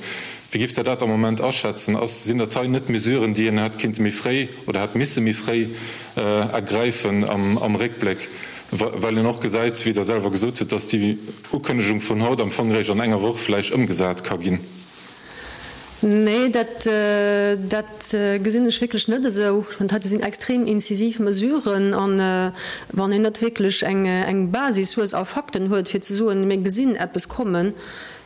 Wéi giff Der dat am Moment aschätzen? Ass, sinn dat hei net Mesuren, déi een hätt kinnte méi fréi oder hätt misse méi fréi ergräifen am Réckbléck, well een och gesäit, wéi Der selwer gesot hutt, datt déi Ukënnegung vun haut am Fong eréischt an enger Woch vläicht ëmgesat ka ginn? Nee, dat, dat gesinn ech wierklech net esou. Ech mengen, dat heite sinn extrem incisiv Mesuren. An wann een net wierklech eng, eng Basis hues a Fakten huet, fir ze soen, mir gesinn eppes kommen,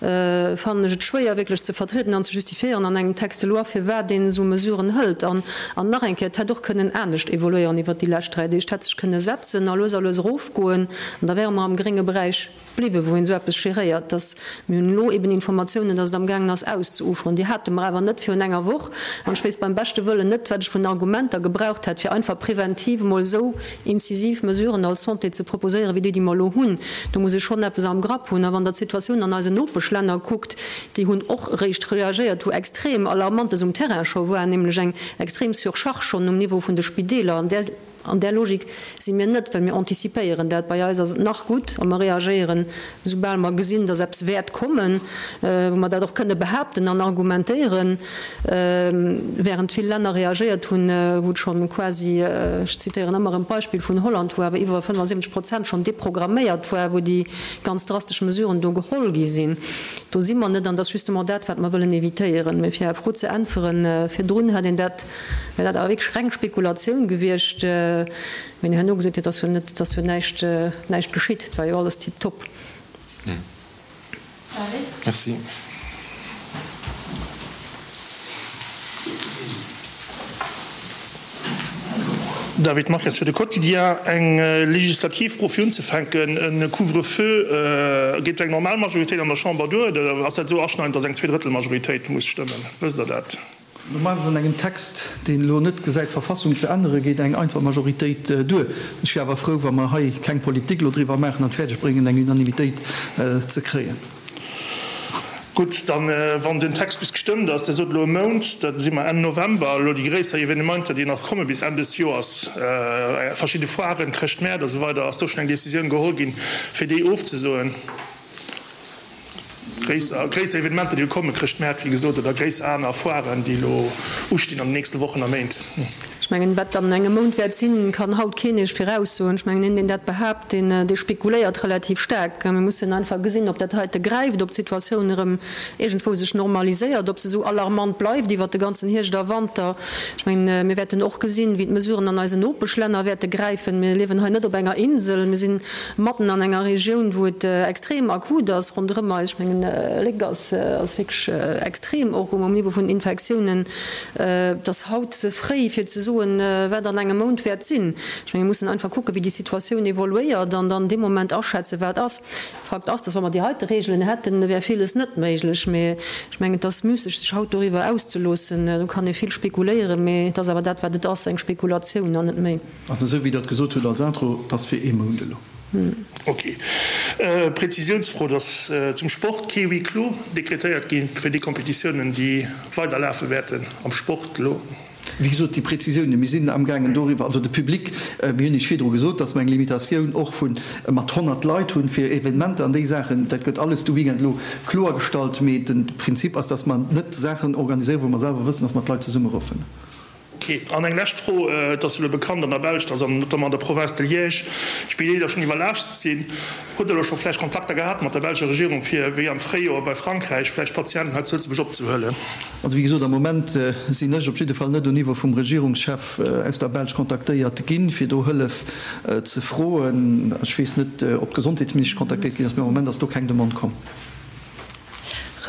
fannen ech et schwéier wierklech ze vertrieden an ze justifiéieren an engem Texte de loi, firwat een esou Mesuren hëlt. An, an nach eng Kéier, et hätt och kënnen anescht evoluéieren iwwert déi lescht 3 Deeg. Et hätt sech kënne setzen a lues a lues erof. Goen, an da wäre mer am grénge Beräich bliwwen, wou een esou eppes geréiert. Dass mir hunn elo eben Informatiounen, dass et amgaangen ass auszeuferen. Déi hate mer awer net virun enger Woch. An ech wéisst beim beschte Wëllen net, wat ech vun Argumenter gebraucht hätt, fir einfach preventiv emol esou incisiv Mesuren als Santé ze proposéieren, wéi déi, déi mer elo hunn. Do muss ee schonn eppes am Grapp hunn. A wann Der d'Situatioun an eisen Nopeschlänner kuckt, déi hunn och eréischt reagéiert, wou extrem Alarmantes um Terrain scho war, nämlech eng extrem Surcharge schonn um Niveau vun de Spideeler. An där. An där Logik si mir net, well mir antizipéieren dat. Bei eis ass et nach gutt a mer reagéieren, soubal mer gesinn, dass eppes wäert kommen, wou mer dat och kënne behaapten an argumentéieren, während vill Länner reagéiert hunn, wou et scho quasi, ech zitéieren ëmmer erëm d'Beispill vun Holland, wou awer iwwer 75 Prozent schonn deprogramméiert war, wou déi ganz drastesch Mesuren do geholl gi sinn. Do si mer net an dat ass justement dat, wat mer wëllen évitéieren. Mee fir Är Fro ze äntweren, virdrun hätt een dat Wär dat awer wierklech reng Spekulatioun gewiescht, wéi en herno gesot huet, ass jo net, ass jo näischt, näischt geschitt, et war jo alles tiptop. Merci. David Marques fir de Quotidien. Eng legislativ Fro fir unzefänken, E Couvre-feu, geet eng normal Majoritéit an der Chamber duer oder ass dat esou aschneidend, datt eng Zweedrëttelmajoritéit muss stëmmen? Wësst Der dat? Normalerweis an engem Text, deen elo net gesäit, d'Verfassung ze änneren, geet eng einfach Majoritéit duer. Ech wier awer frou, wa mer hei keng Politik elo driwwer maachen an et fäerdeg bréngen, eng Unanimitéit ze kréien. Gutt, dann, wann den Text bis gestëmmt ass, Dir sot elo e Mount, da si mer Enn November, elo déi gréisser Evenementer, déi nach komme bis Enn des Joers, verschidde Foiren, Chrëschtmäert a sou weider, ass do schonn eng Décisioun geholl ginn, fir déi ofzesoen? Gréisser Evenementer, déi elo kommen, Chrëschtmäert, wéi gesot, oder gréisser aner Foiren, déi elo ustinn an den nächste Wochen a Méint. Ech mengen, wat an engem Mount wäert sinn, kann haut keen Iech viraussoen. Ech mengen, een, deen dat behaapt, deen, dee spekuléiert relativ staark. Mir mussen einfach gesinn, ob dat heite gräift, ob d'Situatioun erëm iergendwou sech normaliséiert, ob se esou alarmant bleift iwwert de ganzen Hierscht a Wanter. Ech mengen, mir wäerten och gesinn, wéi d'Mesuren an eisen Nopeschlänner wäerte gräifen. Mir liewen hei net op enger Insel. Mir sinn matten an enger Regioun, wou et extrem akut ass ronderëm eis. Ech mengen, Léck ass wierklech extrem och um Niveau vun den Infektiounen. Et ass haut ze fréi, fir ze soen, wat an engem Mount wäert sinn. Ech mengen, mir mussen einfach kucken, wéi déi Situatioun evoluéiert an dann dee Moment aschätzen, wat ass. Fakt ass, dass wa mer déi heite Regeln hätten, wär villes net méiglech. Mee ech mengen, et ass müsseg, sech haut doriwwer auszeloossen. Do kann ee vill spekuléieren, mee et ass awer dat, wat et ass, eng Spekulatioun an net méi. Also esou wéi Der et gesot hutt als Intro, et ass fir ee Mount elo. Ok. Prezisiounsfro, Et ass zum Sport kee Huis clos dekretéiert gi fir déi Competitiounen, déi weiderlafe wäerten am Sport elo? Wéi gesot, déi Prezisiounen, mir sinn amgaangen doriwwer, also de Public, mir hunn Iech virdru gesot, dass mer eng Limitatioun och vu mat 100 Leit hunn fir Evenementer an déi Saachen. Dat gëtt alles de Weekend elo kloergestallt. Mee de Prinzip ass, dass mer net Saachen organiséieren, wou mer selwer wëssen, dass mer d'Leit zesummeruffen. Ok. An eng lescht Fro, Et ass jo elo bekannt an der Belsch, dass an notamment an der Province de Liège d'Spideeler schonn iwwerlaascht sinn. Hutt Der elo scho vläicht Kontakter gehat mat der belscher Regierung, fir, wéi am Fréijoer bei Frankräich, vläicht Patienten hei zu Lëtzebuerg opzehuelen? Also wéi gesot, am Moment sinn ech op jidde Fall net au Niveau vum Regierungschef aus der Belsch kontaktéiert ginn, fir do Hëllef ze froen. Ech weess net, ob d'Gesondheetsministesch kontaktéiert ginn ass, mee am Moment ass do keng Demande komm.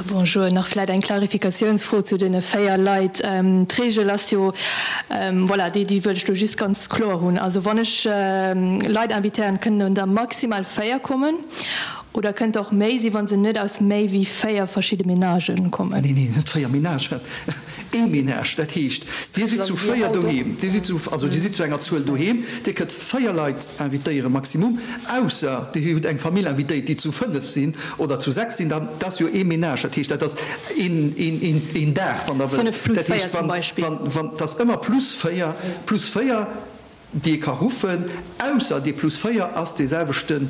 Bonjour, nach vläit eng Klarifikatiounsfro zu deene 4 Leit. D'Regel ass jo, voilà, déi déi wëll ech elo just ganz kloer hunn. Also wann ech Leit invitéieren, kënnen der maximal 4 kommen oder kënnt der och méi sinn, wa se net aus méi wéi 4 verschidde Menagen kommen? Neen, neen, net 4 Menagen. Ee Menage, dat heescht, Dir sidd zu 4 doheem, Dir sidd zu, also Dir sidd zu enger Zuel doheem, Dir kënnt 4 Leit invitéieren, maximum, ausser Dir hutt eng Famill invitéiert, déi zu 5 sinn oder zu 6 sinn, dann, dat ass jo ee Menage, dat heescht, dat ass een, een, een, een Dag, wann Der wëllt. 5 plus 4 zum Beispill. Wann, wann, dat ass ëmmer plus 4, plus 4, déi ee ka ruffen, ausser dee plus 4 ass dee selwechten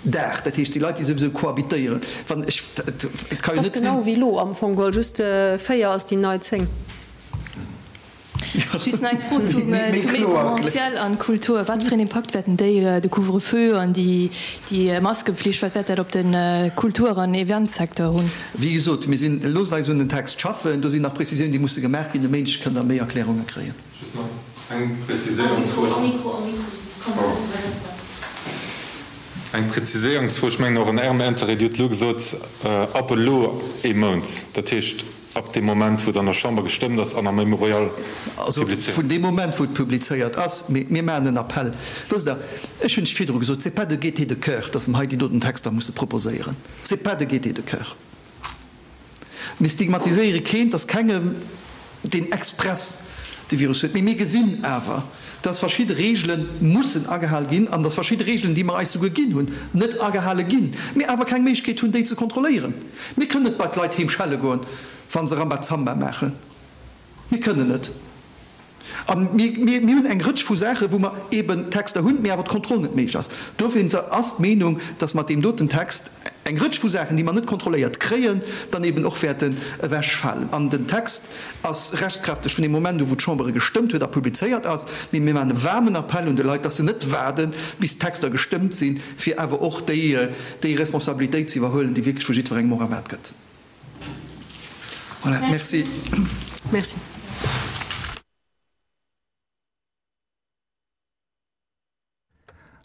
Dag, dat heescht déi Leit, déi souwisou cohabitéieren. Wann ech, et ka jo net sinn. Ass genau wéi elo am Fong geholl, just 4 ass déi nei 10. Just nach eng Fro zum Événementiel an Kultur. Wat fir een Impakt wäerten déi, de Couvre-feu an déi Maskepflicht, wat wäert dat op de Kultur an Eventsecteur hunn? Wéi gesot, mir sinn, loosst eis un den Text schaffen, do sinn nach Prezisiounen, déi musse gemaach ginn. E Méindeg kënnt Der méi Erklärunge kréien. Just nach eng Präziséierungsfro. Eng Präziséierungsfro, ech mengen och an Ärem Intérêt. Dir hutt elo gesot, ab elo ee Mount. Dat heescht, ab deem Moment, wou et an der Chamber gestëmmt ass an am Mémorial Also publizéiert. vun deem Moment, wou et publizéiert ass. Mee mir maachen en Appell. Wësst Der, ech hunn et virdru gesot, c'est pas de gaieté de cœur, dass mer hei déi doten Texter musse proposéieren. C'est pas de gaieté de cœur. Mir stigmatiséiere keen, et ass kengem, deen express de Virus huet. Mee mir gesinn awer, dass verschidde Reegele mussen agehal ginn an dass verschidde Reegelen, déi mer eis souguer ginn hunn, net agehale ginn, mir awer keng Méiglechkeet hunn, déi ze kontrolléieren. Mir kënnen net bei d'Leit heem schelle goen, wa se Rambazamba maachen. Mir kënnen net. A mir hunn eng Rëtsch vu Saachen, wou mer eeben Texter hunn, mee awer d'Kontroll net méiglech ass. Dofir ass d'Meenung, dass mat deem doten Text eng Rëtsch vu Saachen, déi mer net kontrolléiert kréien, dann eeben och wäerten ewechfalen. An den Text ass rechtskräfteg vun deem Moment u wou d'Chamber e gestëmmt huet a publizéiert ass. Mee mir maachen e waarmen Appell un de Leit, dass se net waarden, bis d'Texter gestëmmt sinn, fir awer och déi Responsabilitéit ze iwwerhuelen, déi wierklech vu jiddwerengem och erwaart gëtt. Voilà, merci. Merci.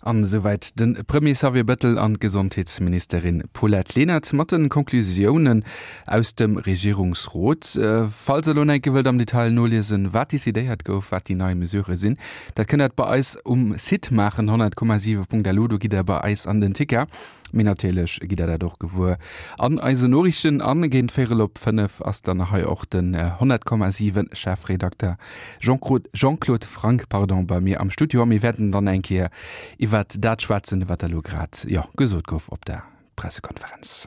An esouwäit de Premier Xavier Bettel an d'Gesondheetsministerin Paulette Lenert mat de Conclusiounen aus dem Regierungsrot. Falls der elo nach eng Kéier wëllt am Detail noliesen, wat decidéiert gouf, wat déi nei Mesurë sinn, dat kënnt der bei eis um Site maachen, 100,7.lu, do gitt der bei eis an den Ticker. Mee natierlech gitt der dat och gewuer an eisen Noriichten. An géint véierel op 5 ass dann hei och den 100,7 Chefredakter Jean-Claude Franck pardon, bei mir am Studio a mir wäerten dann eng Kéier iwwert dat schwätzen, wat da lo grad, jo, gesot gouf op der Pressekonferenz.